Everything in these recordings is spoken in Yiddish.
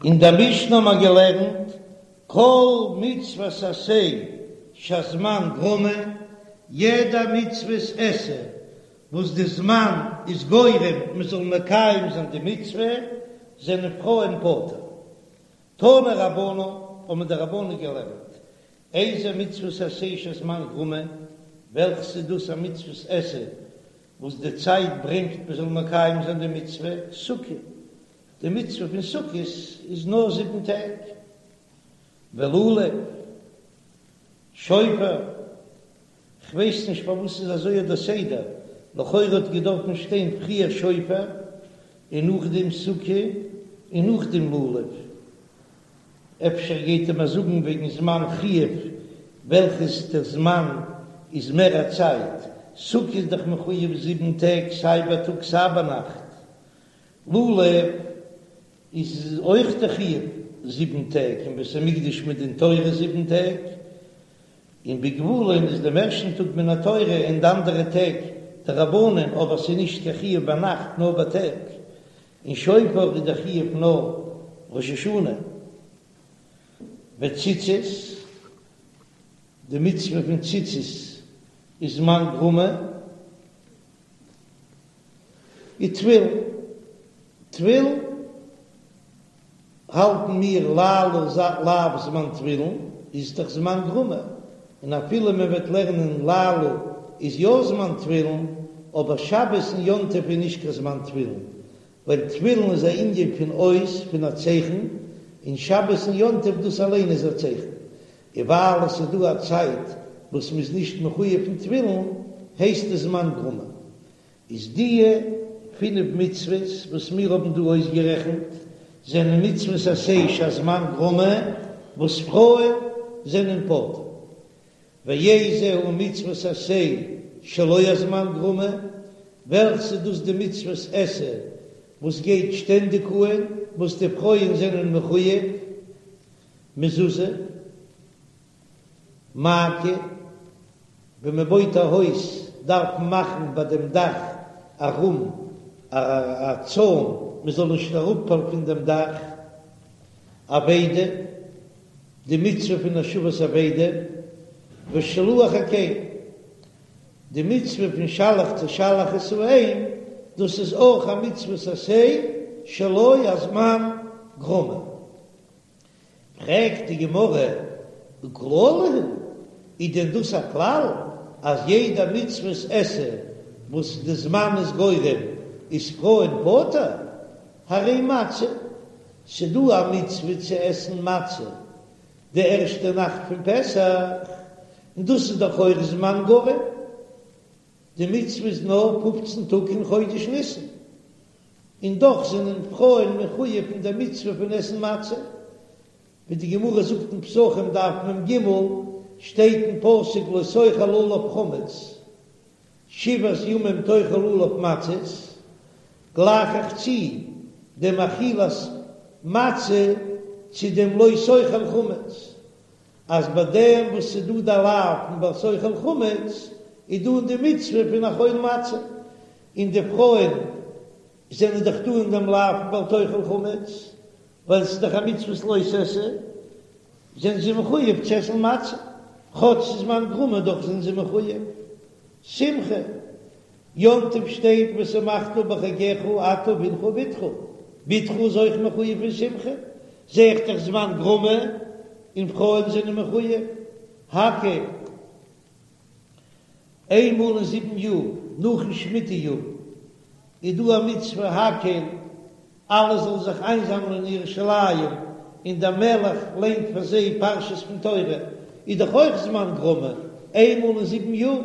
אין דער משנה האבן מיר געלערנט, כל מצוות עשה שהזמן גרמא, יעדע מצוות עשה וואס די זמן איז גורם מען זאל מקיים זיין די מצוה, זענען פרויען פטור. תנו רבנן, האבן די רבנן געלערנט, איזה מצוות עשה שהזמן גרמא, וועלכעס איז דאס א מצוות עשה וואס די צייט ברענגט מען זאל מקיים זיין די מצוה, סוכה, די מצוה פון סוכות איז נאר זיבן טעג, ולולב, שופר, כ'ווייס נישט פארוואס איז אזוי דער סדר, לכאורה האט געדארפן שטיין פריער שופר און נאכדעם סוכה און נאכדעם לולב, אפשר גייט ער מיר זאגן וועגן זמן חיוב וועלכעס דער זמן איז מער א צייט, סוכה איז דאך מחויב זיבן טעג סיי בייטאג סיי ביינאכט, לולב איז אויך די חיוב זיבן טעג אין בית המקדש מדין תורה זיבן טעג, און בגבולין איז דעם ערשטן טאג מן התורה און די אנדערע טעג דרבנן, אבער ס'איז נישט קיין חיוב ביינאכט נאר בייטאג, און שופר איז דער חיוב נאר ראש השנה. וציצית, די מצוה פון ציצית איז זמן גרמא. ותפילין, תפילין האלטן מיר לילה לאו זמן תפילין איז דאך זמן גרמא, און אפילו מען וועט לערנען לילה איז יא זמן תפילין, אבער שבת און יום טוב איז נישט קיין זמן תפילין, ווייל תפילין איז א ענין פון אות, פון א צייכן, און שבת און יום טוב דאס אליין איז א צייכן, און ווייל עס איז דא א צייט וואס מען איז נישט מחויב פון תפילין, הייסט עס זמן גרמא. איז דיע פינף מצוות וואס מיר האבן דא אויסגערעכנט זענען מצוות עשה שהזמן גרמא וואס פרויען זענען פטור. ואיזו היא מצוות עשה שלא הזמן גרמא, וועלכס איז דאס די מצוות עשה וואס גייט שטענדיג אהן וואס די פרויען זענען מחויב, מזוזה. מעקה, ווען מען בויט א הויז דארף מען מאכן ביי דעם דאך ארום א צוים מען זאל נישט אראפפאלן פון דעם דאך. אבידה, די מצוה פון השבת אבידה, ושילוח הקן, די מצוה פון שלח תשלח את האם, דאס איז אויך א מצוות עשה שלא הזמן גרמא. פרעגט די גמרא, וכללא הוא, איז דען דאס א כלל אז יעדע מצוות עשה וואס די זמן איז גורם איז פרויען פטור? הרי מצה, ס'דא א מצוה צו עסן מצה די ערשטע נאכט פון פסח, און דאס איז דאך אויך זמן גורם, די מצוה איז נאר פופצן טאג אין חודש ניסן, און דאך זענען פרויען מחויב אין דער מצוה פון עסן מצה, ווי די גמרא זאגט אין פסחים דף מ"ג, שטייט אין פסוק לא תאכל עליו חמץ, שבעת ימים תאכל עליו מצות, גלייך איך צו דעם אכילת מצה צו דעם לא תאכל חמץ, אז ביי דעם וואס ס'איז דא די לאו פון בל תאכל חמץ, איז דא אין די מצוה פון אכול מצה, און די פרויען זענען דאך דא אין דעם לאו פון בל תאכל חמץ, ווייל ס'איז דאך א מצוות לא תעשה, זענען זיי מחויב צו עסן מצה, כאטש ס'איז זמן גרמא דאך זענען זיי מחויב. שמחה, יום טוב שטייט ושמחת בחגך אתה ובנך ובתך, בתך איז אויך מחויב פון שמחה, זע איך דאך זמן גרמא און פרויען זענען מחויב. הקהל. איינמאל אין זיבן יאר, נאכן שמיטה יאר, איז דא א מצוה הקהל, אלע זאלן זיך איינזאמלען אין ירושלים, און דער מלך ליינט פאר זיי פרשות פון תורה, איז דאך אויך זמן גרמא, איינמאל אין זיבן יאר,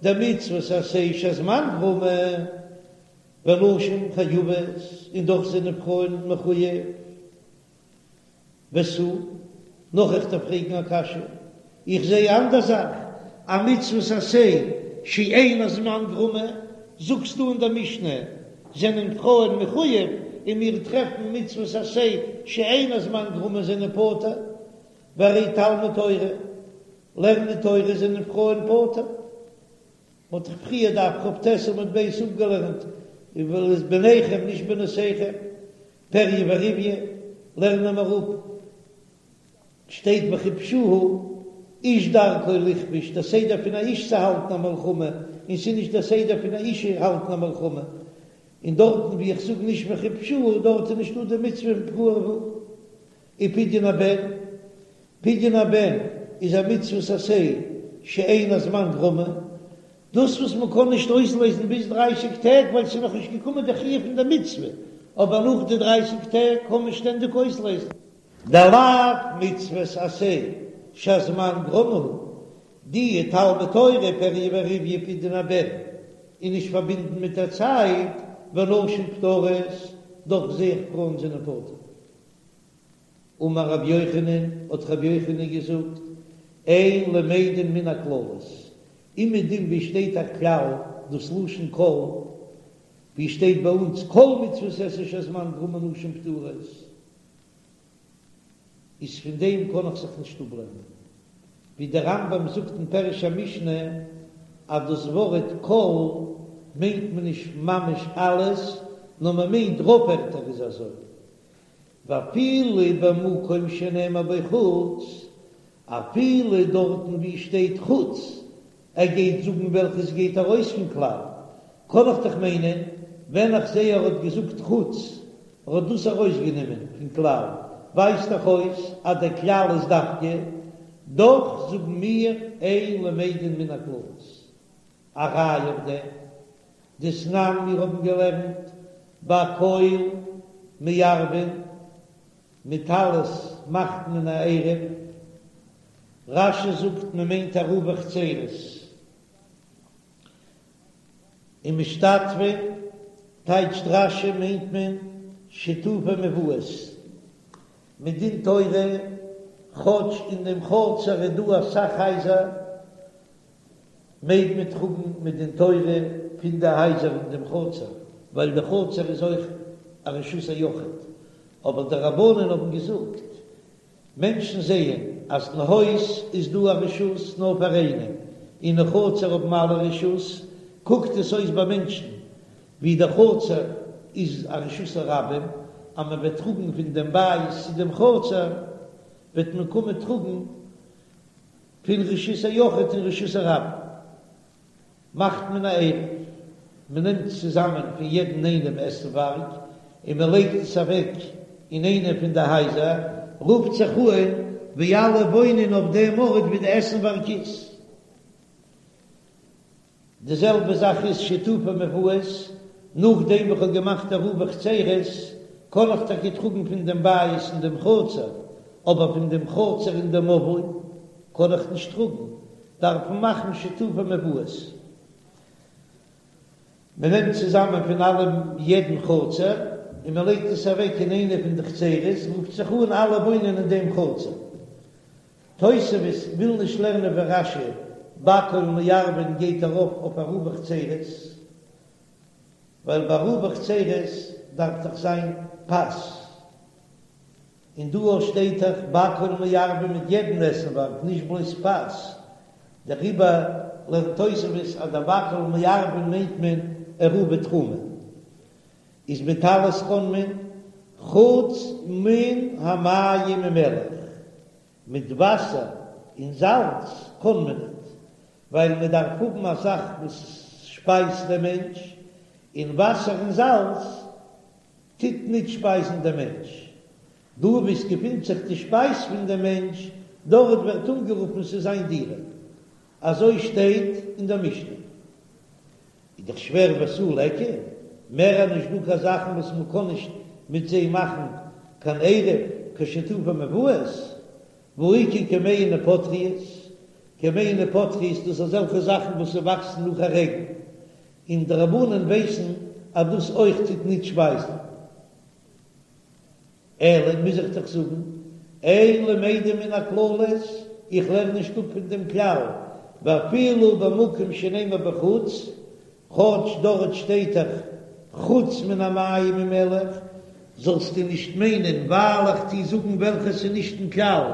דמצוות עשה שהזמן גרמא, ונשים חייבות, און דאך זענען פרויען מחויב. ותו, נאך איך דארף פרעגן א קשיא, איך זע א אנדער זאך, א מצוות עשה שאין הזמן גרמא, זאגסטו אין דער משנה זענען פרויען מחויב, און מיר טרעפן מצוות עשה שאין הזמן גרמא זענען פטור, והרי תלמוד תורה, לערנען תורה זענען פרויען פטור. מ'האט דאך פריער דף כ"ט עמוד ב' אפגעלערנט, ואת בניכם נישט בנותיכם, פריה ורביה. לערנען מיר אפ, שטייט וכבשוה איש דרכו לכבוש, דער סדר פון א איש צו האלטן א מלחמה, און ס'איז נישט דער סדר פון א אשה האלטן א מלחמה, און דארטן ווי איך זאג נישט וכבשוה דארט איז נישטא די מצוה פון פרו ורבו. ופדיון הבן, פדיון הבן איז א מצוות עשה שאין הזמן גרמא, דאס וואס מען קען נישט אויסלעזן ביז דרייסיג טעג ווייל ס'איז נאך נישט געקומען די חיוב פון די מצוה, אבער נאך די דרייסיג טעג קען מען שטענדיג אויסלעזן. דלאו מצוות עשה שהזמן גרמא הוא, די תלמוד תורה פריה ורביה פדיון הבן איז נישט פארבינדן מיט א צייט, ונשים פטורות, דאך זע איך פרויען זענען פטור. אמר רבי יוחנן, האט רבי יוחנן געזאגט, אין למדין מן הכללות, אומעדום ווי שטייט א כלל, דאס לשון כל, ווי שטייט ביי אונז כל מצוות עשה שהזמן גרמא נשים פטורות, איז פון דעם קען איך זיך נישט אפלערנען, ווי דער רמב"ם זאגט אין פירוש המשנה אז דאס ווארט כל מיינט מען נישט ממש אלעס, נאר מען מיינט רוב ערטער איז אזוי, ואפילו במקום שנאמר בו חוץ, אפילו דארטן ווי שטייט חוץ, ער גייט זאגן וועלכעס גייט ארויס פון כלל, קען איך דאך מיינען ווען איך זעה ער האט געזאגט חוץ, ער האט דאס ארויסגענומען פון כלל, ווייזט דאך אויס אז דער כלל איז דווקא, דאך זאגן מיר אין למדין מן הכללות. א ראיה אויף דעם, דתנן מיר האבן געלערנט בכל מערבין, מיט אלעס מאכט מען א עירוב, רש"י זאגט מען מיינט עירובי חצירות, ומשתתפין טייטשט רש"י מיינט מען שיתופי מבואות, מדין תורה כאטש אין דעם חצר איז דא אסאך הייזער מעג מען טראגן מדין תורה פון די הייזער אין דעם חצר, ווייל די חצר איז אויך א רשות היחיד, אבער די רבנן האבן געזאגט, מענטשן זעען אז אין הויז איז דא א רשות נאר פאר איינעם, און אין חצר האבן אלע רשות, קוקט עס אויס ביי מענטשן ווי די חצר איז א רשות הרבים, אז מען וועט טראגן פון דעם בית צו דעם חצר, וועט מען קומען טראגן פון רשות היחיד אין רשות הרבים מאכט מען א עירוב, מען נעמט צוזאמען פון יעדן איינעם עסנווארג און מען לייגט עס אוועק אין איינע פון די הייזער, רופט זיך אן ווי אלע וואוינען אויף דעם ארט ווי די עסנווארג איז. די זעלבע זאך איז שיתופי מבואות, נאכדעם וואס כ'האב געמאכט עירובי חצירות, קען איך טאקע טראגן פון דעם בית אין דעם חצר, אבער פון דעם חצר אין דעם מבוי קען איך נישט טראגן, דארף מען מאכן שיתופי מבואות. מען נעמט צוזאמען פון אלעם יעדן חצר און מען לייגט עס אוועק אין איינע פון די חצירות, רופט זיך אן אלע וואוינען אין דעם חצר. תוספות וויל נישט לערנען ווי רש"י, בכל מערבין גייט ארויף אויף עירובי חצירות, ווייל ביי עירובי חצירות דארף דאך זיין פת, און דא שטייט דאך בכל מערבין מיט יעדן עסנווארג נישט בלויז פת, דעריבער לערנט תוספות אז דער בכל מערבין מיינט מען עירובי תחומין, איז מיט אלעס קען מען חוץ מן המים ומלח. מיט וואסער און זאלץ קען מען ניט, ווייל מען דארף האבן א זאך וואס שפייזט דעם מענטש, און וואסער און זאלץ טוט ניט שפייזן דעם מענטש. דא וואו עס געפינט זיך די שפייז פון דעם מענטש, דארט ווערט אנגערופן ס'איז זיין דירה. אזוי שטייט אין דער משנה. איז דאך שווער ותו ליכא, מער איז נישט דא קיין זאכן וואס מען קען נישט מיט זיי מאכן קיין עירוב, קיין שיתופי מבואות, והאיכא כמהין ופטריות, כמהין ופטריות דאס אזעלכע זאכן וואס ס'וואקסן נאך א רעגן, און די רבנן ווייסן אז דאס אויך טוט ניט שפייזן. אלא מוז איך דאך זאגן, אין למדין מן הכללות, איך לערן נישט אפ פון דעם כלל, ואפילו במקום שנאמר בו חוץ, כאטש דארט שטייט דאך חוץ מן המים ומלח, זאלסטו נישט מיינען ווייל איך טו זאגן וועלכעס איז נישט אין כלל,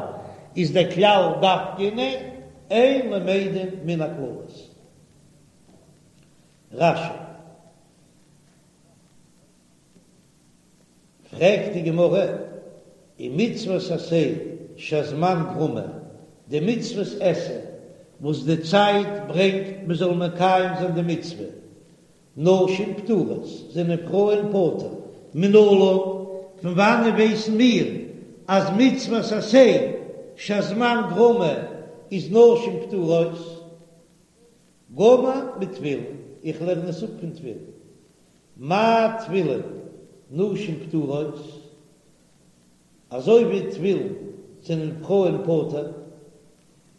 איז דער כלל דווקא ניין, אין למדין מן הכללות. רש"י. פרעגט די גמרא. און מצוות עשה שהזמן גרמא, די מצוות עשה וואס די צייט ברענגט מען זאל מקיים זיין די מצוה, נשים פטורות, זענען פרויען פטור. מנלן, פון וואנען ווייסן מיר אז מצוות עשה שהזמן גרמא איז נשים פטורות? גמר מתפילין, איך לערן עס אפ פון תפילין. מה תפילין נשים פטורות, אזוי ווי תפילין זענען פרויען פטור,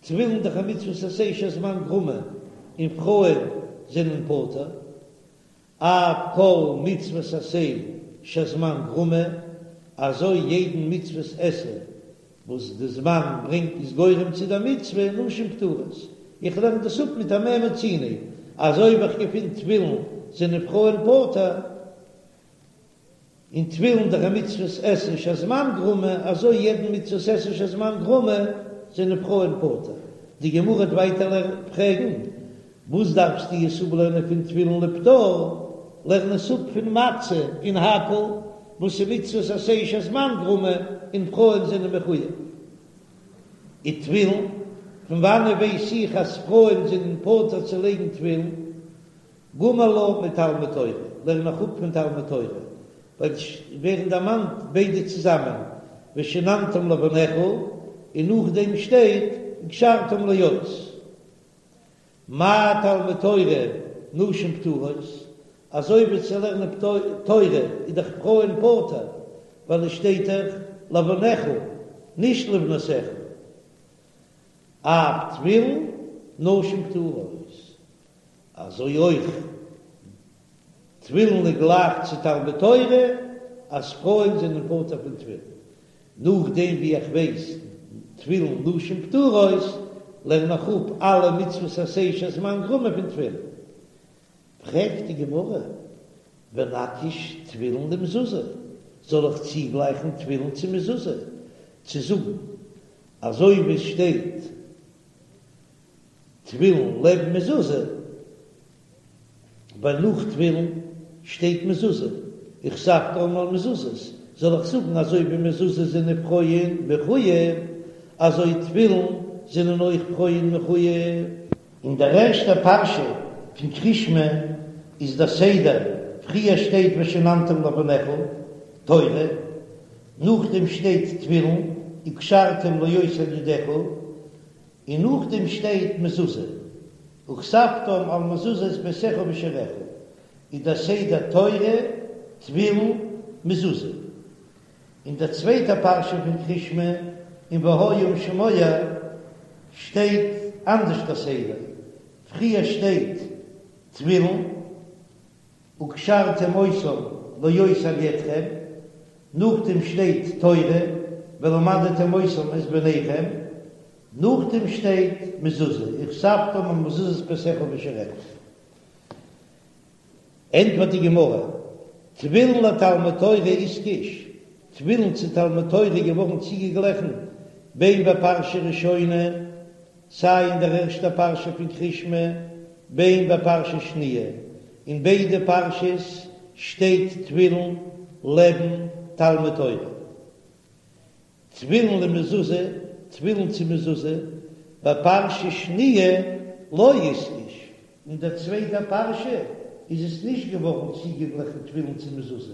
תפילין דאך א מצוות עשה שהזמן גרמא און פרויען זענען פטור, אף כל מצוות עשה שהזמן גרמא, אזוי יעדן מצוות עשה וואס די זמן ברענגט איז גורם צו די מצוה, נשים פטורות. איך לערן דאס אפ מיט א מה מצינו, אז אויב איך געפין תפילין זענען פרויען פטור, און תפילין דאך א מצוות עשה שהזמן גרמא, אזוי יעדן מצוות עשה שהזמן גרמא זענען פרויען פטור. די גמרא וועט ווייטער פרעגן, וואס דארפסטו עס אפלערנען פון תפילין לפטור? לערן עס אפ פון מצה און הקהל, וואס איז מצוות עשה שהזמן גרמא און פרויען זענען מחויב. ותפילין, פון וואנען ווייס איך אז פרויען זענען פטור צו לייגן תפילין? גמר לה מתלמוד תורה, לערן איך אפ פון תלמוד תורה, ווייל עס ווערן דערמאנט ביידע צוזאמען, ושננתם לבניך, און נאכדעם שטייט וקשרתם לאות. מה תלמוד תורה נשים פטורות, אזוי ווי צו לערנען תורה איז דאך פרויען פטור, ווייל עס שטייט דאך לבניך נישט לבנותיך, אף תפילין נשים פטורות, אזוי אויך תפילין איז גלייך צו תלמוד תורה אז פרויען זענען פטור פון תפילין, נאכדעם ווי איך ווייס תפילין נשים פטורות, לערן איך אפ אלע מצוות עשה שהזמן גרמא פון תפילין. פרעגט די גמרא, ונקיש תפילין למזוזה, זאל איך צוגלייכן תפילין צו מזוזה, צו זאגן אזוי ווי עס שטייט תפילין לעבן מזוזה, ווייל נאך תפילין שטייט מזוזה, וכתבתם על מזוזות, זאל איך זאגן אזוי ווי מזוזה זענען פרויען מחוייב, אזוי תפילין זענען אויך פרויען מחוייב? אין דער ערשטער פרשה פון קריאת שמע איז דער סדר, פריער שטייט ושננתם לבניך, תורה, נאכדעם שטייט תפילין, וקשרתם לאות על ידך, און נאכדעם שטייט מזוזה, וכתבתם על מזוזות ביתך ובשעריך, איז דער סדר תורה, תפילין, מזוזה. אין דער צווייטער פרשה פון קריאת שמע, אין והיה אם שמוע, שטייט אנדערש דער סדר, פריער שטייט תפילין, וקשרתם אותם לאות על ידכם, נאכדעם שטייט תורה, ולמדתם אותם את בניכם, נאכדעם שטייט מזוזה, וכתבתם על מזוזות ביתך ובשעריך. ענטפערט די גמרא, תפילין לתלמוד תורה איתקש, תפילין צו תלמוד תורה איז געווארן צוגעגליכן בין בפרשה ראשונה, סיי אין דער ערשטער פרשה פון קריאת שמע, בין בפרשה שניה, אין ביידע פרשות שטייט תפילין לעבן תלמוד תורה. תפילין למזוזה, תפילין צו מזוזה, בפרשה שניה לא איתקש, אין דער צווייטער פרשה איז עס נישט געווארן צוגעגליכן תפילין צו מזוזה,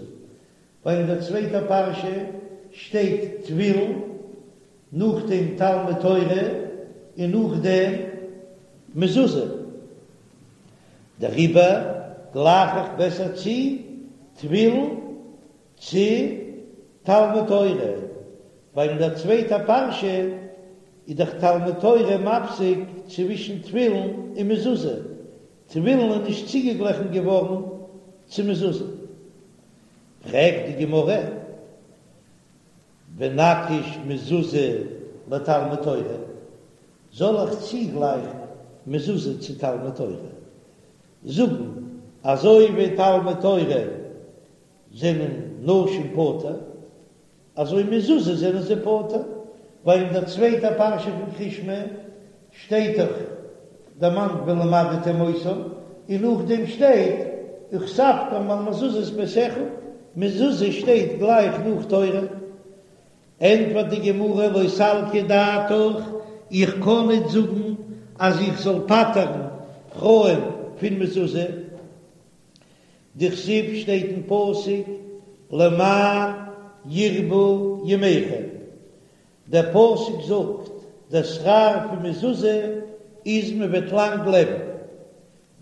ווייל אין דער צווייטער פרשה שטייט תפילין, נאכדעם תלמוד תורה און נאכדעם מזוזה, דעריבער גלייך איך בעסער צו תפילין צו תלמוד תורה, ווייל אין דער צווייטער פרשה איז דאך תלמוד תורה מפסיק צווישן תפילין און מזוזה, תפילין איז נישט צוגעגליכן געווארן צו מזוזה. פרעגט די גמרא, ונקיש מזוזה לתלמוד תורה, זאל איך צוגלייכן מזוזה צו תלמוד תורה, זאגן אזוי ווי תלמוד תורה זענען נשים פטור, אזוי מזוזה זענען זיי פטור, ווייל אין דער צווייטער פרשה פון קריאת שמע שטייט דאך דערמאנט ולמדתם אותם, און נאכדעם שטייט וכתבתם על מזוזות ביתך, מזוזה שטייט גלייך נאך תורה. ענטפערט די גמרא לא סלקא דעתך, איך קען ניט זאגן אז איך זאל פטר'ן פרויען פון מזוזה, דכתיב שטייט אין פסוק למען ירבו ימיכם, דער פסוק זאגט דער שכר פון מזוזה איז מען וועט לאנג לעבן,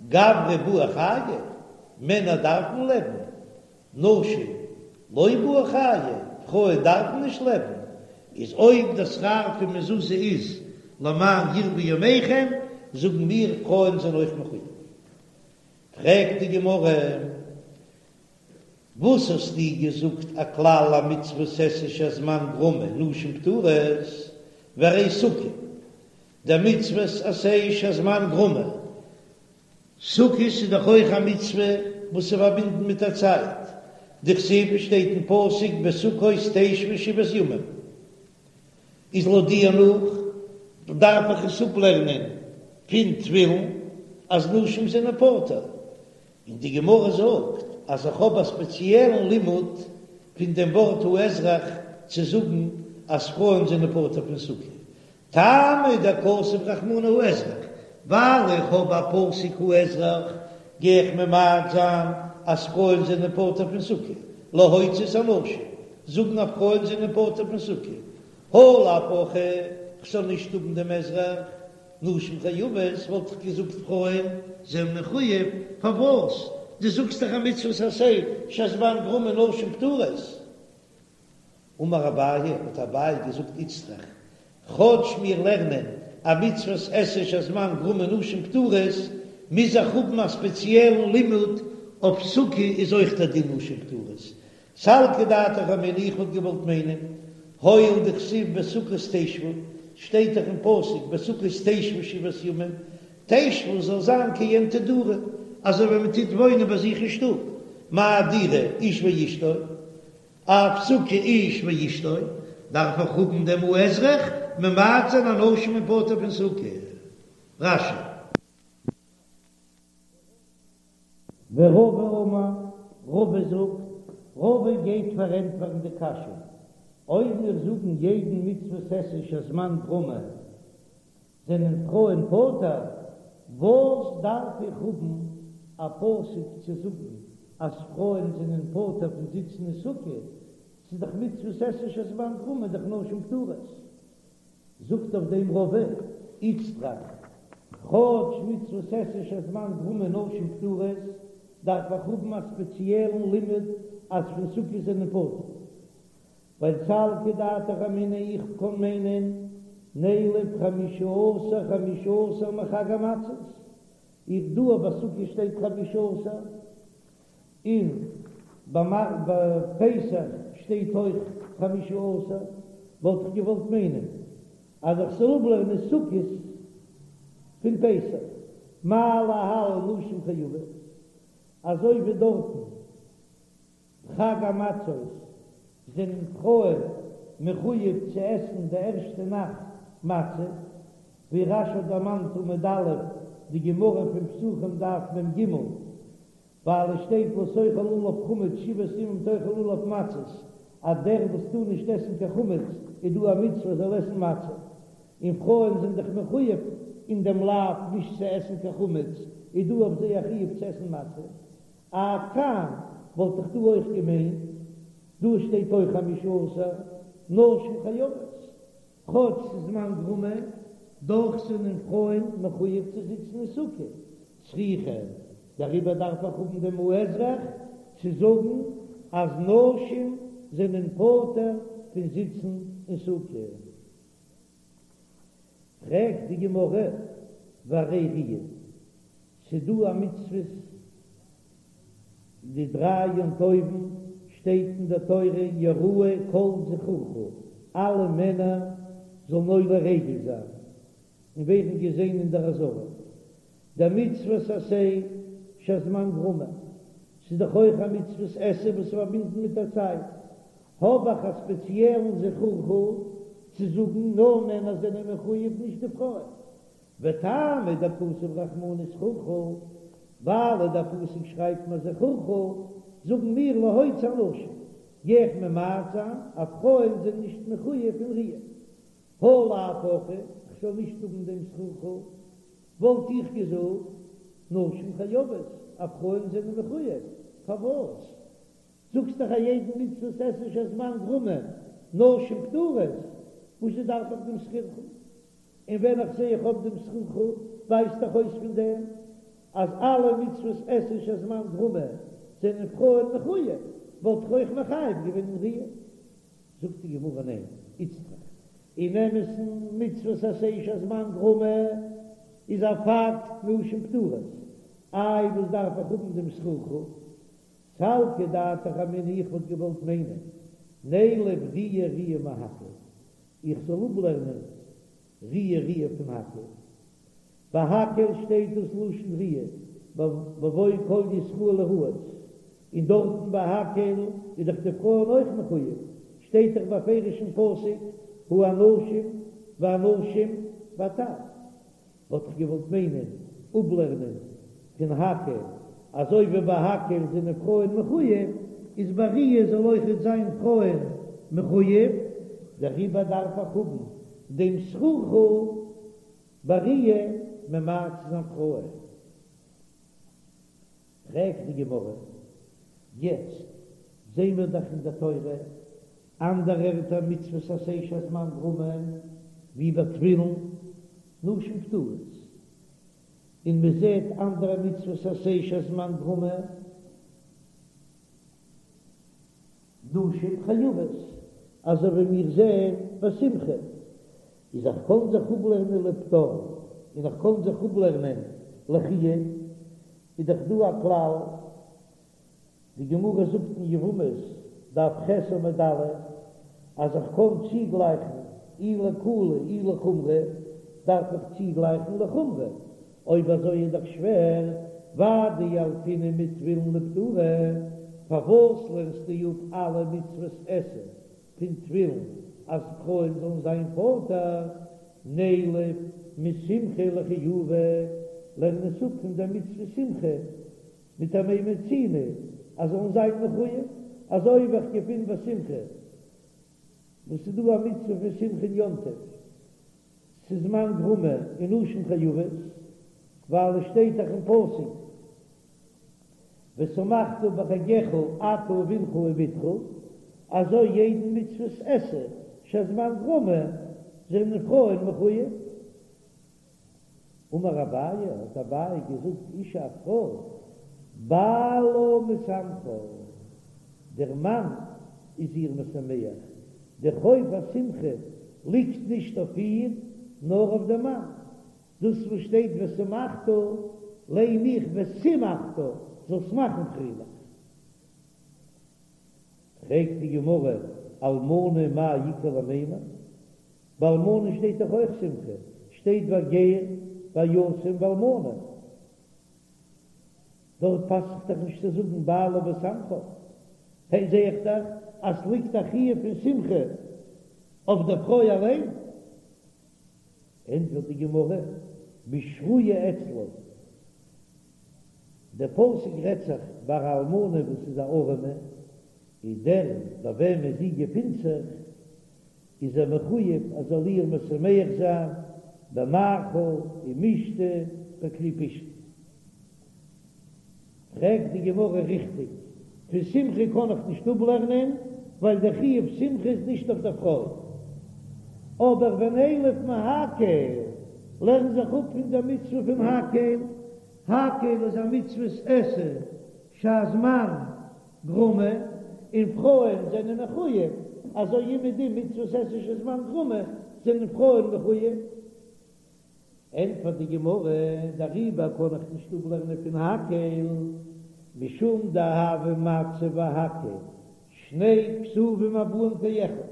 גברי בעי חיי, מענער דארפן לעבן, נשים לא בעו חיי, פרויען דארפן נישט לעבן, איז אויב דער שכר פון מזוזה איז למען ירבו ימיכם, זאגן מיר פרויען זענען אויך מחויב. פרעגט די גמרא, וואס האסטו געזאגט א כלל א מצוות עשה שהזמן גרמא נשים פטורות, והרי סוכה, די מצוות עשה שהזמן גרמא, סוכות איז דאך אויך א מצוה וואס איז פארבינדן מיט א צייט, דכתיב שטייט אין פסוק בסוכות תשבו שבעת ימים, איז לויט דיר נאך דארף איך עס אפלערנען פון תפילין אז נשים זענען פטור, און די גמרא זאגט אז איך האב א ספעציעלן לימוד פון דעם ווארט האזרח צו זאגן אז פרויען זענען פטור פון סוכה, טעמא דכתב רחמנא האזרח, ווייל איך האב א פסוק האזרח גיי איך ממעט זיין אז פרויען זענען פטור פון סוכה, להוציא את הנשים, זאגן אז פרויען זענען פטור פון סוכה, הא לאו הכי, כ'זאל נישט האבן דעם אזרח, נשים חייבות, וואלט איך געזאגט פרויען זענען מחויב, פארוואס? דו זאגסט דאך א מצוות עשה שהזמן גרמא נשים פטורות. אמר אביי, האט אביי געזאגט איצטריך, כאטש מיר לערנען א מצוות עשה שהזמן גרמא נשים פטורות, מוז איך האבן א ספעציעלן לימוד אויף סוכה איז אויך דער דין נשים פטורות. סלקא דעתך אמינא איך וואלט געוואלט מיינען, הואיל דכתיב בסוכות תשבו, שטייט דאך אין פסוק בסוכות תשבו שבעת ימים, תשבו זאל זיין כעין תדורו, אזוי ווי מען טוט וואוינען ביי זיך אין שטוב, מה דירה איש ואשתו, אף סוכה איש ואשתו, דארף איך האבן דעם האזרח ממעט זיין אז נשים זענען פטור פון סוכה. רש"י. ורבא אמר, רבא זאגט, רבא גייט פארענטפערן די קשיא, אויב מיר זאגן יעדן מצוות עשה שהזמן גרמא זענען פרויען פטור, וואס דארף איך האבן א פסוק צו זאגן אז פרויען זענען פטור פון זיצן אין סוכה, ס'איז דאך מצוות עשה שהזמן גרמא דאך נשים פטורות. זאגט אויף דעם רבא, איצטריך, כאטש מצוות עשה שהזמן גרמא נשים פטורות, דארף איך האבן א ספעציעלן לימוד אז פון סוכה זענען פטור. ווייל סלקא דעתך אמינא איך קען מיינען נילף חמשה עשר חמשה עשר מחג המצות, איך דא ביי סוכה שטייט חמשה עשר, און ביי פסח שטייט אויך חמשה עשר, וואלט איך געוואלט מיינען אז איך זאל אפלערנען סוכות פון פסח, מה להלן נשים חייבות, אזוי ווי דארטן. חג המצות זענען פרויען מחויב צו עסן די ערשטע נאכט מצה, ווי רש"י האט דערמאנט עמוד א' די גמרא פון פסחים דף מ"ג, ווייל עס שטייט לא תאכל עליו חמץ שבעת ימים תאכל עליו מצות, אז דער וואס טאר נישט עסן קיין חמץ איז דא א מצוה זאל עסן מצה, און פרויען זענען דאך מחויב אין דעם לאו נישט צו עסן קיין חמץ, איז דא אויף זיי א חיוב צו עסן מצה. אף כאן וואלט איך דא אויך געמיינט, דא שטייט אויך חמשה עשר, נשים חייבות, כאטש ס'איז זמן גרמא, דאך זענען פרויען מחויב צו זיצן אין סוכה, צריכא, דעריבער דארף איך האבן דעם האזרח צו זאגן אז נשים זענען פטור פון זיצן אין סוכה. פרעגט די גמרא, והרי ראיה, ס'דא א מצוות די דריי יום טובים, שטייט אין די תורה יראה כל זכורך, אלע מענער זאלן עולה רגל זיין און ווערן געזען אין דער עזרה, דמצוות עשה שהזמן גרמא, ס'איז דאך אויך א מצוות עשה וואס איז פארבינדן מיט א צייט, האב איך א ספעציעלן זכורך צו זאגן נאר מענער זענען מחויב נישט די פרויען, וטעמא דכתב רחמנא זכורך, ווייל דער פסוק שרייבט מיר זכורך, זאגן מיר להוציא הנשים. גיי איך ממעט זיין אז פרויען זענען נישט מחויב אין ראיה. הא לאו הכי, כ'זאל נישט האבן דעם זכורך, וואלט איך געזאגט נשים חייבות, אז פרויען זענען מחויב, פארוואס זאגסט דאך א יעדן מצוות עשה שהזמן גרמא נשים פטורות, וואזשע דארף איך דעם זכורך? און ווען איך זע איך האב דעם זכורך, ווייזט דאך אויס פון דעם אז אלע מצוות עשה שהזמן גרמא זענען פרויען מחויב, וואלט איך אויך מחייב געווען אין ראיה. זאגט די גמרא ניין, איצטריך, אין אמת'ן מצוות עשה שהזמן גרמא איז א פאקט נשים פטורות, איי וואס דארף איך האבן דעם זכורך? סלקא דעתך אמינא איך וואלט געוואלט מיינען נילף ראיה ראיה מהקהל איך זאל אפלערנען ראיה ראיה פון הקהל. ביי הקהל שטייט דאס לשון ראיה בבוא כל ישראל לראות, און דארטן ביי הקהל איז דאך די פרויען אויך מחויב, שטייט דאך בפירוש אין פסוק האנשים והנשים והטף. וואלט איך געוואלט מיינען אפלערנען פון הקהל, אזוי ווי ביי הקהל זענען פרויען מחויב, איז ביי ראיה זאל אויכעט זיין פרויען מחויב, דעריבער דארף איך האבן דעם זכורך ביי ראיה ממעט צו זיין פרויען. פרעגט די גמרא, יעצט זעהן מיר דאך אין די תורה אנדערע ערטער מצוות עשה שהזמן גרמא, ווי ביי תפילין, נשים פטורות, און מען זעהט אנדערע מצוות עשה שהזמן גרמא, נשים חייבות, אזוי ווי מיר זעהן ביי שמחה, איז איך קען זיך אפלערנען לפטור און איך קען זיך אפלערנען לחיוב, איז דאך דא א כלל, די גמרא זאגט אין יבמות דף ח' עמוד א', אז איך קען צוגלייכן אי לקולא אי לחומרא, דארף איך צוגלייכן לחומרא, אויב אזוי איז דאך שווער, ואדילפינן מתפילין לפטורי, פארוואס לערנסטו אפ אלע מצוות עשה פון תפילין אז פרויען זאלן זיין פטור, נילף משמחה לחיובא, לערן עס אפ פון דער מצוה שמחה מיט א מה מצינו אז זאלן זיין מחויב, אזוי ווי איך געפין ביי שמחה וואס איז דא א מצוה פון שמחה אין יום טוב, ס'איז זמן גרמא און נשים חייבות, ווייל עס שטייט דאך אין פסוק ושמחת בחגך אתה ובנך ובתך, אזוי יעדן מצוות עשה שהזמן גרמא זענען פרויען מחויב. אמר אביי, האט אביי געזאגט, אשה א פרוי, בעלה משמחה, דער מאן איז איר משמח, דער חוב השמחה ליגט נישט אויף איר, נאר אויף דעם מאן, דאס וואס שטייט ושמחת, ליין איך ושימחת, זאלסט מאכן פרייליך. פרעגט די גמרא, אלמנה מאי איכא למימר? ביי אלמנה שטייט דאך אויך שמחה, שטייט והגר והיתום והאלמנה, דארט פאסט זיך דאך נישט צו זאגן בעלה משמחה, הע זע איך דאך אז ס'ליגט א חיוב פון שמחה אויף דער פרוי אליין. ענטפערט די גמרא, בשרויה אצלו, דער פסוק רעדט זיך ביי א אלמנה וואס איז א ארעמע, און דער ביי וועמען זי געפינט זיך איז ער מחויב אז זאל איר משמח זיין במאכל ומשתה בכלי פשתן. פרעגט די גמרא ריכטיג, פון שמחה קען איך נישט אפלערנען ווייל דער חיוב שמחה איז נישט אויף דער פרוי, אבער ונילף מהקהל, לערן זיך אפ פון דער מצוה פון הקהל, הקהל איז א מצוות עשה שהזמן גרמא, און פרויען זענען מחויב, אזוי אומעדום מצוות עשה שהזמן גרמא זענען פרויען מחויב. ענטפערט די גמרא, דעריבער קען איך נישט אפלערנען פון הקהל, משום דהוה מצה והקהל, שני כתובים הבאים כאחד,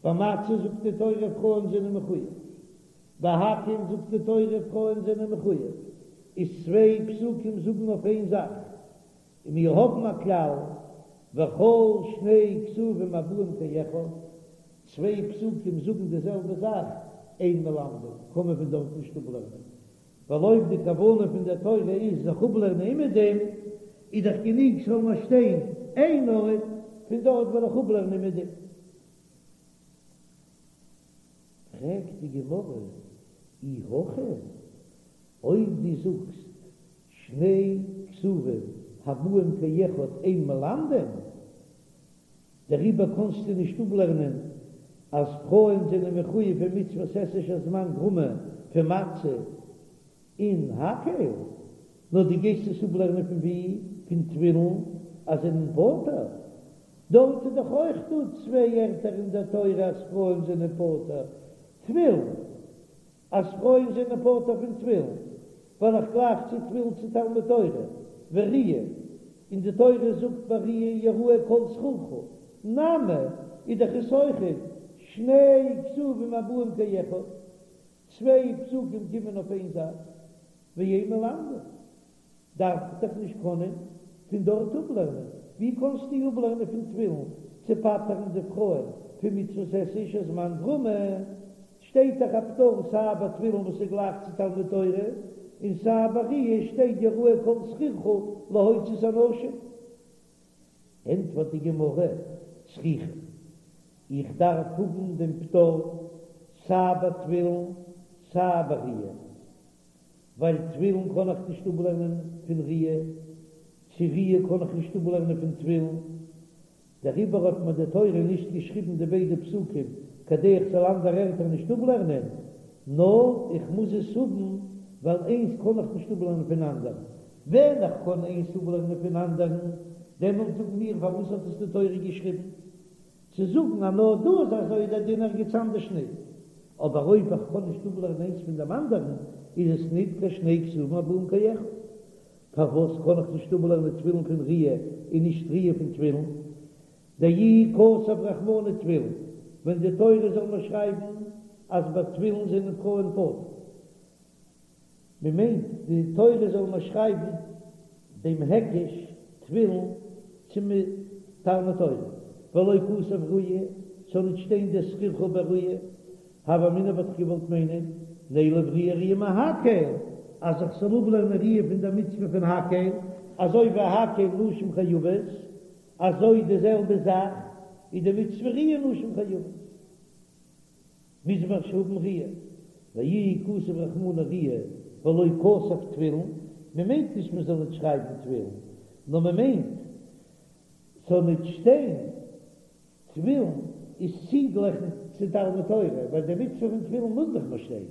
ביי מצה זאגט די תורה פרויען זענען מחויב, ביי הקהל זאגט די תורה פרויען זענען מחויב, איז צוויי פסוקים זאגן אויף איין זאך, און מיר האבן א כלל, וכל שני כתובים הבאים כאחד, צוויי פסוקים זאגן די זעלבע זאך, אין מלמדין, קען מען פון דארט נישט אפלערנען, ווייל אויב די כוונה פון דער תורה איז זיך אפלערנען אומעדום, איז דאך גענוג ס'זאל נאר שטיין איין ארט. פון דארט וועל איך אפלערנען אומעדום. פרעגט די גמרא, אי הכי, אויב דו זאגסט שני כתובים הבאים כאחד אין מלמדין, דעריבער קאנסטו נישט אפלערנען אז פרויען זענען מחויב אין מצוות עשה שהזמן גרמא פון מצה און הקהל, נאר דו גייסט עס אפלערנען פון ווי? פון תפילין אז זענען פטור? דארט איז דאך אויך דא צוויי ערטער אין דער תורה אז פרויען זענען פטור, תפילין, אז פרויען זענען פטור פון תפילין, ווייל איך גלייך צו תפילין צו תלמוד תורה, וראיה, און די תורה זאגט ביי ראיה יראה כל זכורך, נמי, איז דאך עס אויכעט שני כתובים הבאים כאחד, צוויי פסוקים קומען אויף איין זאך, ואין מלמדין. דארף איך דאך נישט קענען פון דארט אפלערנען, ווי קענסטו אפלערנען פון תפילין צו פטר'ן די פרויען פון מצוות עשה שהזמן גרמא? שטייט דאך א פטור סיי ביי תפילין וואס איז גלייך צו תלמוד תורה, און סיי ביי ראיה שטייט יראה כל זכורך להוציא את הנשים. ענטפערט די גמרא, צריכא, איך דארף האבן דעם פטור סיי ביי תפילין סיי ביי ראיה. ווייל תפילין קען איך נישט אפלערנען פון ראיה, צו ראיה קען איך נישט אפלערנען פון תפילין, דעריבער האט מיר די תורה נישט געשריבן די ביידע פסוקים כדי איך זאל אנדערע ערטער נישט אפלערנען, נאר איך מוז עס האבן ווייל איינס קען איך נישט אפלערנען פון אנדערן, ווען איך קען איינס אפלערנען פון אנדערן, דעמאלט זאגן מיר פארוואס האט עס די תורה געשריבן? צו זאגן אז נאר דא איז אזוי דער דין ערגעץ אנדערש ניט, אבער אויב איך קען נישט אפלערנען איינס פון דעם אנדערן, איז עס ניט קיין שני כתובים הבאים כאחד. פארוואס קען איך נישט אפלערנען תפילין פון ראיה און נישט ראיה פון תפילין? דאי כתב רחמנא תפילין, ווען די תורה זאל מיר שרייבן אז ביי תפילין זענען פרויען פטור. מען מיינט די תורה זאל מיר שרייבן דעם היקש תפילין צו תלמוד תורה, ולא כתב ראיה, ס'זאל נישט שטיין די זכורך ביי ראיה, הוה אמינא וואלט איך געוואלט מיינען נילף ראיה ראיה מהקהל, אז איך זאל אפלערנען ראיה פון דער מצוה פון הקהל, אזוי ווי הקהל נשים חייבות, אזוי די זעלבע זאך איז די מצוה ראיה נשים חייבות. מוז מען האבן ראיה, ואי כתב רחמנא ראיה ולא כתב תפילין, מען מיינט נישט מען זאל ניט שרייבן תפילין, נאר מען מיינט ס'זאל ניט שטיין תפילין איז צוגלעכן צו תלמוד תורה, ווייל די מצוה פון תפילין מוז דאך נאר שטיין,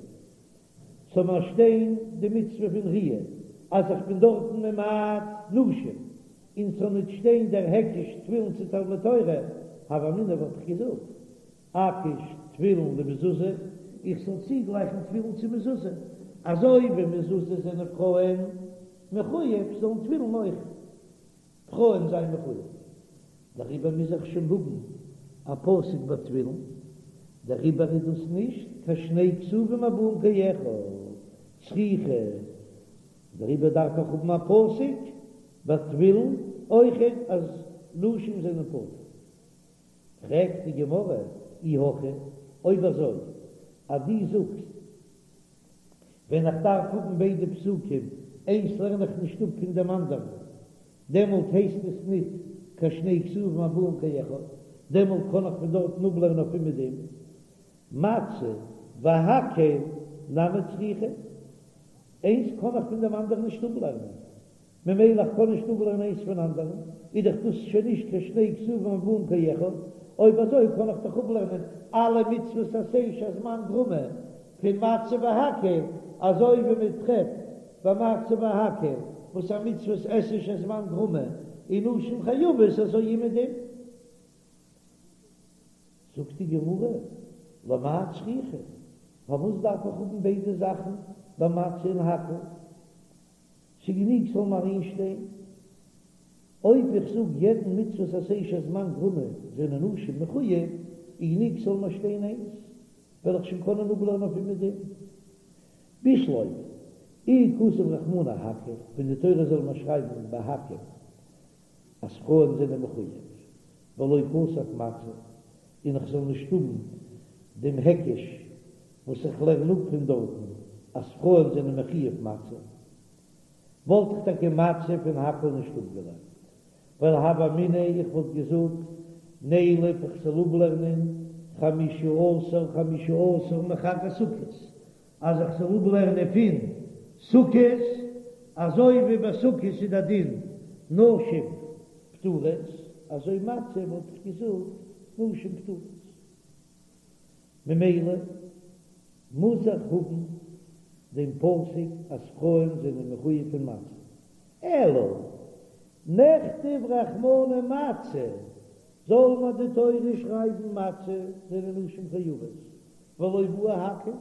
ס'זאל נאר שטיין די מצוה פון ראיה, אז איך בין דארטן ממעט נשים, און ס'זאל ניט שטיין דער היקש תפילין צו תלמוד תורה, הוה אמינא וואלט איך געזאגט. אקיש תפילין למזוזה, איך זאל צוגלייכן תפילין צו מזוזה, אזוי ווי מזוזה זענען פרויען מחויב, זאלן תפילין אויך פרויען זיין מחויב. דעריבער מוז איך שוין האבן א פסוק ביי תפילין, דעריבער איז דאס נישט קיין שני כתובים הבאים כאחד, צריכא, דעריבער דארף איך האבן א פסוק ביי תפילין אויכעט אז נשים זענען פטור. פרעגט די גמרא, אי הכי, אויב אזוי אז דו זאגסט ווען איך דארף האבן ביידע פסוקים, איינס לערן איך נישט אפ פון דעם אנדערן, דעמאלט הייסט עס ניט קיין שני כתובים הבאים כאחד, דעמאלט קען איך פון דארטן אפלערנען אויף אומעדום מצה והקהל נמי צריכא, איינס קען איך פון דעם אנדערן נישט אפלערנען. ממילא איך קען נישט אפלערנען איינס פון אנדערן, איז דאך דאס שוין נישט קיין שני כתובים הבאים כאחד, אויב אזוי קען איך דאך אפלערנען אלע מצוות עשה שהזמן גרמא פון מצה והקהל, אזוי ווי מען טרעפט ביי מצה והקהל וואס א מצוות עשה שהזמן גרמא און נשים חייבות אזוי אומעדום. זאגט די גמרא, למאי צריכא, פארוואס דארף איך האבן ביידע זאכן ביי מצה און הקהל? ס'גענוג ס'זאל נאר איינס שטיין. אויב איך זאג יעדן מצוות עשה שהזמן גרמא זענען נשים מחוייב, איז גענוג ס'זאל נאר שטיין איינס, וועל איך שוין קענען אפלערנען אויף אומעדום. בשלמא, אי כתב רחמנא הקהל, ווען די תורה זאל נאר שרייבן ביי הקהל אז פרויען זענען מחוייב, ולא כתב מצה, און איך זאל נישט האבן דעם היקש וואס איך לערן אפ פון דארטן אז פרויען זענען מחויב מצה, וואלט איך טאקע מצה פון הקהל נישט אפגעלערנט, ווייל הוה אמינא איך וואלט געזאגט. נילף איך זאל אפלערנען חמשה עשר חמשה עשר מחג הסוכות, אז איך זאל אפלערנען פון סוכות, אזוי ווי ביי סוכות איז דער דין נשים פטורות, אזוי מצה וואלט איך געזאגט נשים פטורות. ממילא מוז איך האבן דעם פסוק אז פרויען זענען מחויב פון מצה. אלא נכתוב רחמנא מצה, זאל מיר די תורה שרייבן מצה זענען נשים חייבות, ולא בעי הקהל,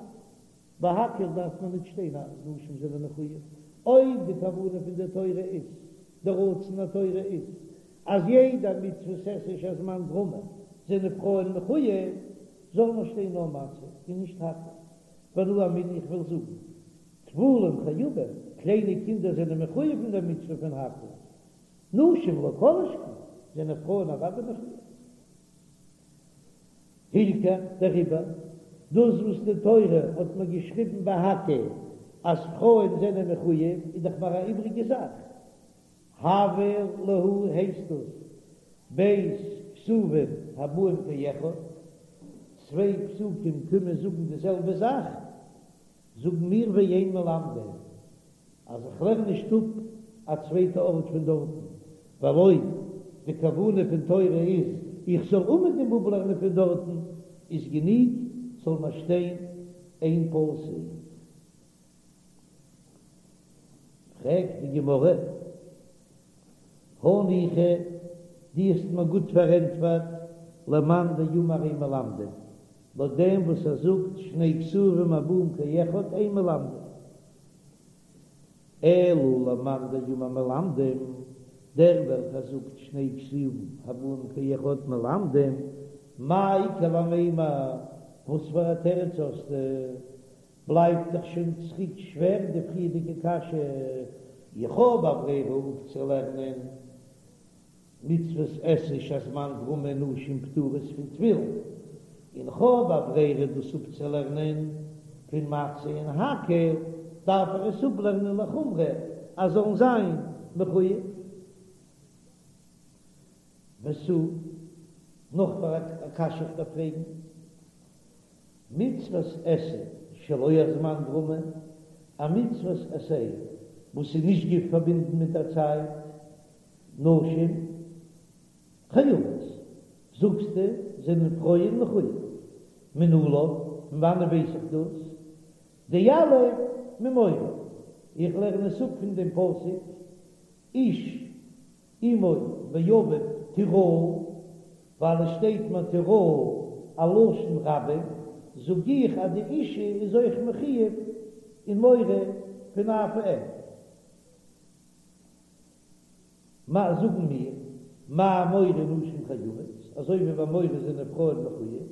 ביי הקהל דארף מען נישט שטיין אז נשים זענען מחויב, אויב די כוונה פון די תורה איז, די רצון התורה איז, אז יעדע מצוות עשה שהזמן גרמא זענען פרויען מחויב, זאל נאר שטיין נאר מצה און נישט הקהל. ואנא אמינא איך וויל זאגן, טפלים חייבים, קליינע קינדער זענען מחויב אין דער מצוה פון הקהל, נשים לא כל שכן, זענען פרויען אוודאי מחויב. הילכך, דעריבער, דאס וואס די תורה האט מיר געשריבן ביי הקהל אז פרויען זענען מחויב, איז דאך מיר א איבריגע זאך. הוה להו הייסט דאס ב' כתובים הבאים כאחד, צוויי פסוקים קומען זאגן די זעלבע זאך, זאגן מיר ואין מלמדין אז איך לערן נישט אפ א צווייטע ארט פון דארטן, ווייל אויב די כוונה פון תורה איז איך זאל אומעדום אפלערנען פון דארטן, איז גענוג זאל מיר שטיין איין פסוק. פרעגט די גמרא, הניחא, דו האסט מיר גוט פארענטפערט, למאן דאמר אין מלמדין, לויט דעם וואס ער זאגט שני כתובים הבאים כאחד אין מלמדין, אלא למאן דאמר מלמדין, דער וועלכער זאגט שני כתובים הבאים כאחד מלמדין, מאי איכא למימר, וואס פאר א תירוץ האסטו? בלייבט דאך שוין צוריק שווער די פריערדיגע קשיא, איך האב א ברירה אפצולערנען מצוות עשה שהזמן גרמא נשים פטורות פון תפילין, און כ'האב א ברירה דאס אפצולערנען פון מצה און הקהל, דארף איך עס אפלערנען לחומרא אז זאלן זיין מחויב. ותו, נאך פאר א קשיא איך דארף פרעגן. מצוות עשה שלא הזמן גרמא, א מצוות עשה וואס איז נישט גע פארבינדן מיט א צייט, נשים חייבות, זאגסטו זענען פרויען מחויב, מנלן, פון וואנען ווייס איך דאס? דיליף ממורה, איך לערן עס אפ פון דעם פסוק איש אמו ואביו תיראו, ווייל עס שטייט מיר תיראו א לשון רבים, זאג איך אז די אישה איז אויך מחויב אין מורא פון אב ואם. מה זאגן מיר, מה מורא נשים חייבות, אזוי ווי ביי מורא זענען פרויען מחויב,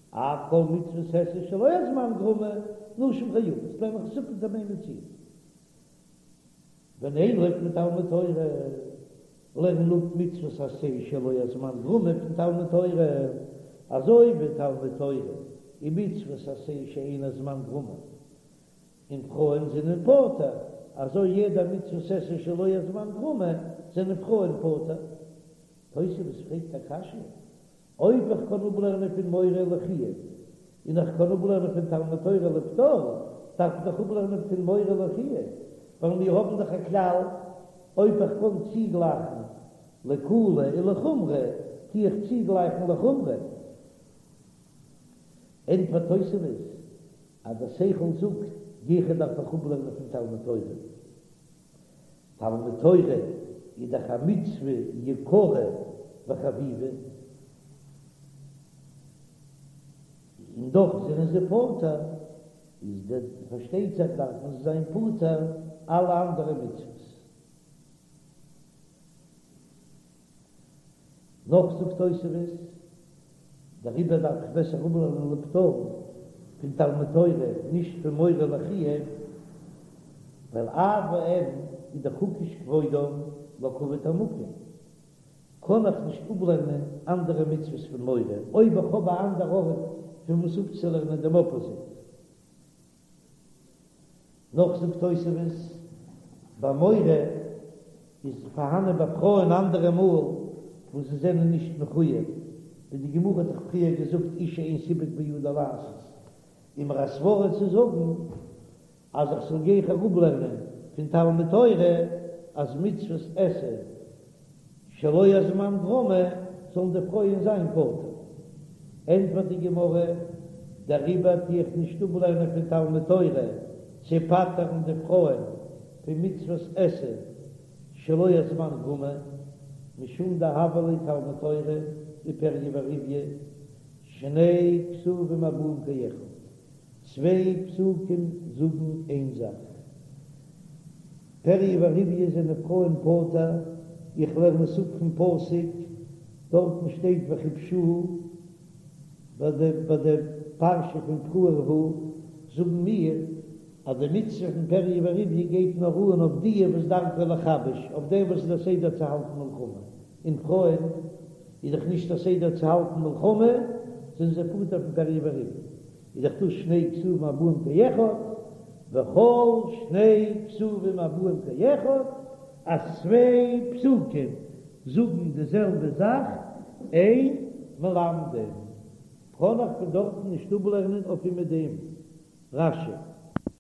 אף כל מצוות עשה שלא הזמן גרמא, נשים חייבות, לערן איך עס אפ פון דעם איין מציאה. ונילף מתלמוד תורה, לערן אפ מצוות עשה שלא הזמן גרמא פון תלמוד תורה, אזוי ווי תלמוד תורה איז מצוות עשה שאין הזמן גרמא, און פרויען זענען פטור, אזוי יעדע מצוות עשה שלא הזמן גרמא זענען פרויען פטור. תוספות פרעגט א קשיא, אויב איך קען אפלערנען פון מורא לחיוב, און איך קען אפלערנען פון תלמוד תורה לפטור, דארף איך דאך אפלערנען פון מורא לחיוב, ווייל מיר האבן דאך א כלל, אויב איך קען צוגלייכן לקולא און לחומרא, טו איך צוגלייכן לחומרא. ענטפערט תוספות אז דער שכל זאגט, גיכער דארף איך אפלערנען פון תלמוד תורה. תלמוד תורה איז דאך א מצוה יקרה וחביבה, און דאך זענען זיי פטור, איז דער פארשטייט זיך דארפן זיי זיין פטור אלע אנדערע מצוות. נאך זאגט תוספות, דעריבער דארף איך בעסער אפלערנען לפטור פון תלמוד תורה, נישט פון מורא לחיוב, ווייל אב ואם איז דאך הוקש כבודם לכבוד המקום, קען איך נישט אפלערנען אנדערע מצוות פון מורא, אויב איך האב א אנדער ארט פון וואס אפצולערנען דעם אפאזיט. נאך זאגט תוספות, ביי מורא איז פארהאנען ביי פרויען אנדערע מאל וואס זיי זענען נישט מחויב. ווי די גמרא האט דאך פריער געזאגט אשה אין סיפק בידה לעשות, איז מיר א סברא צו זאגן אז איך זאל גיכער אפלערנען פון תלמוד תורה אז מצוות עשה שלא הזמן גרמא זאלן די פרויען זיין פטור. ענטפערט די גמרא, דעריבער טו איך נישט אפלערנען פון תלמוד תורה צו פטר'ן די פרויען פון מצוות עשה שלא הזמן גרמא, משום דהוה ליה תלמוד תורה ופריה ורביה שני כתובים הבאים כאחד, צוויי פסוקים זאגן איין זאך. פריה ורביה זענען פרויען פטור, איך לערן עס אפ פון פסוק, דארטן שטייט וכבשוה, ביי די ביי די פרשה פון פרו ורבו זאגן מיר אז די מצוה פון פריה ורביה גייט נאר אן אויף די וואס דרכו לכבש, אויף דעם וואס איז א סדר צו האלטן מלחמה, און פרויען איז דאך נישט א סדר צו האלטן מלחמה, זענען זיי פטור פון פריה ורביה. איז דאך דאס שני כתובים הבאים כאחד, וכל שני כתובים הבאים כאחד, אז צוויי פסוקים זאגן די זעלבע זאך, אין מלמדין, קען איך פון דארטן נישט אפלערנען אויף מיט דעם רש"י.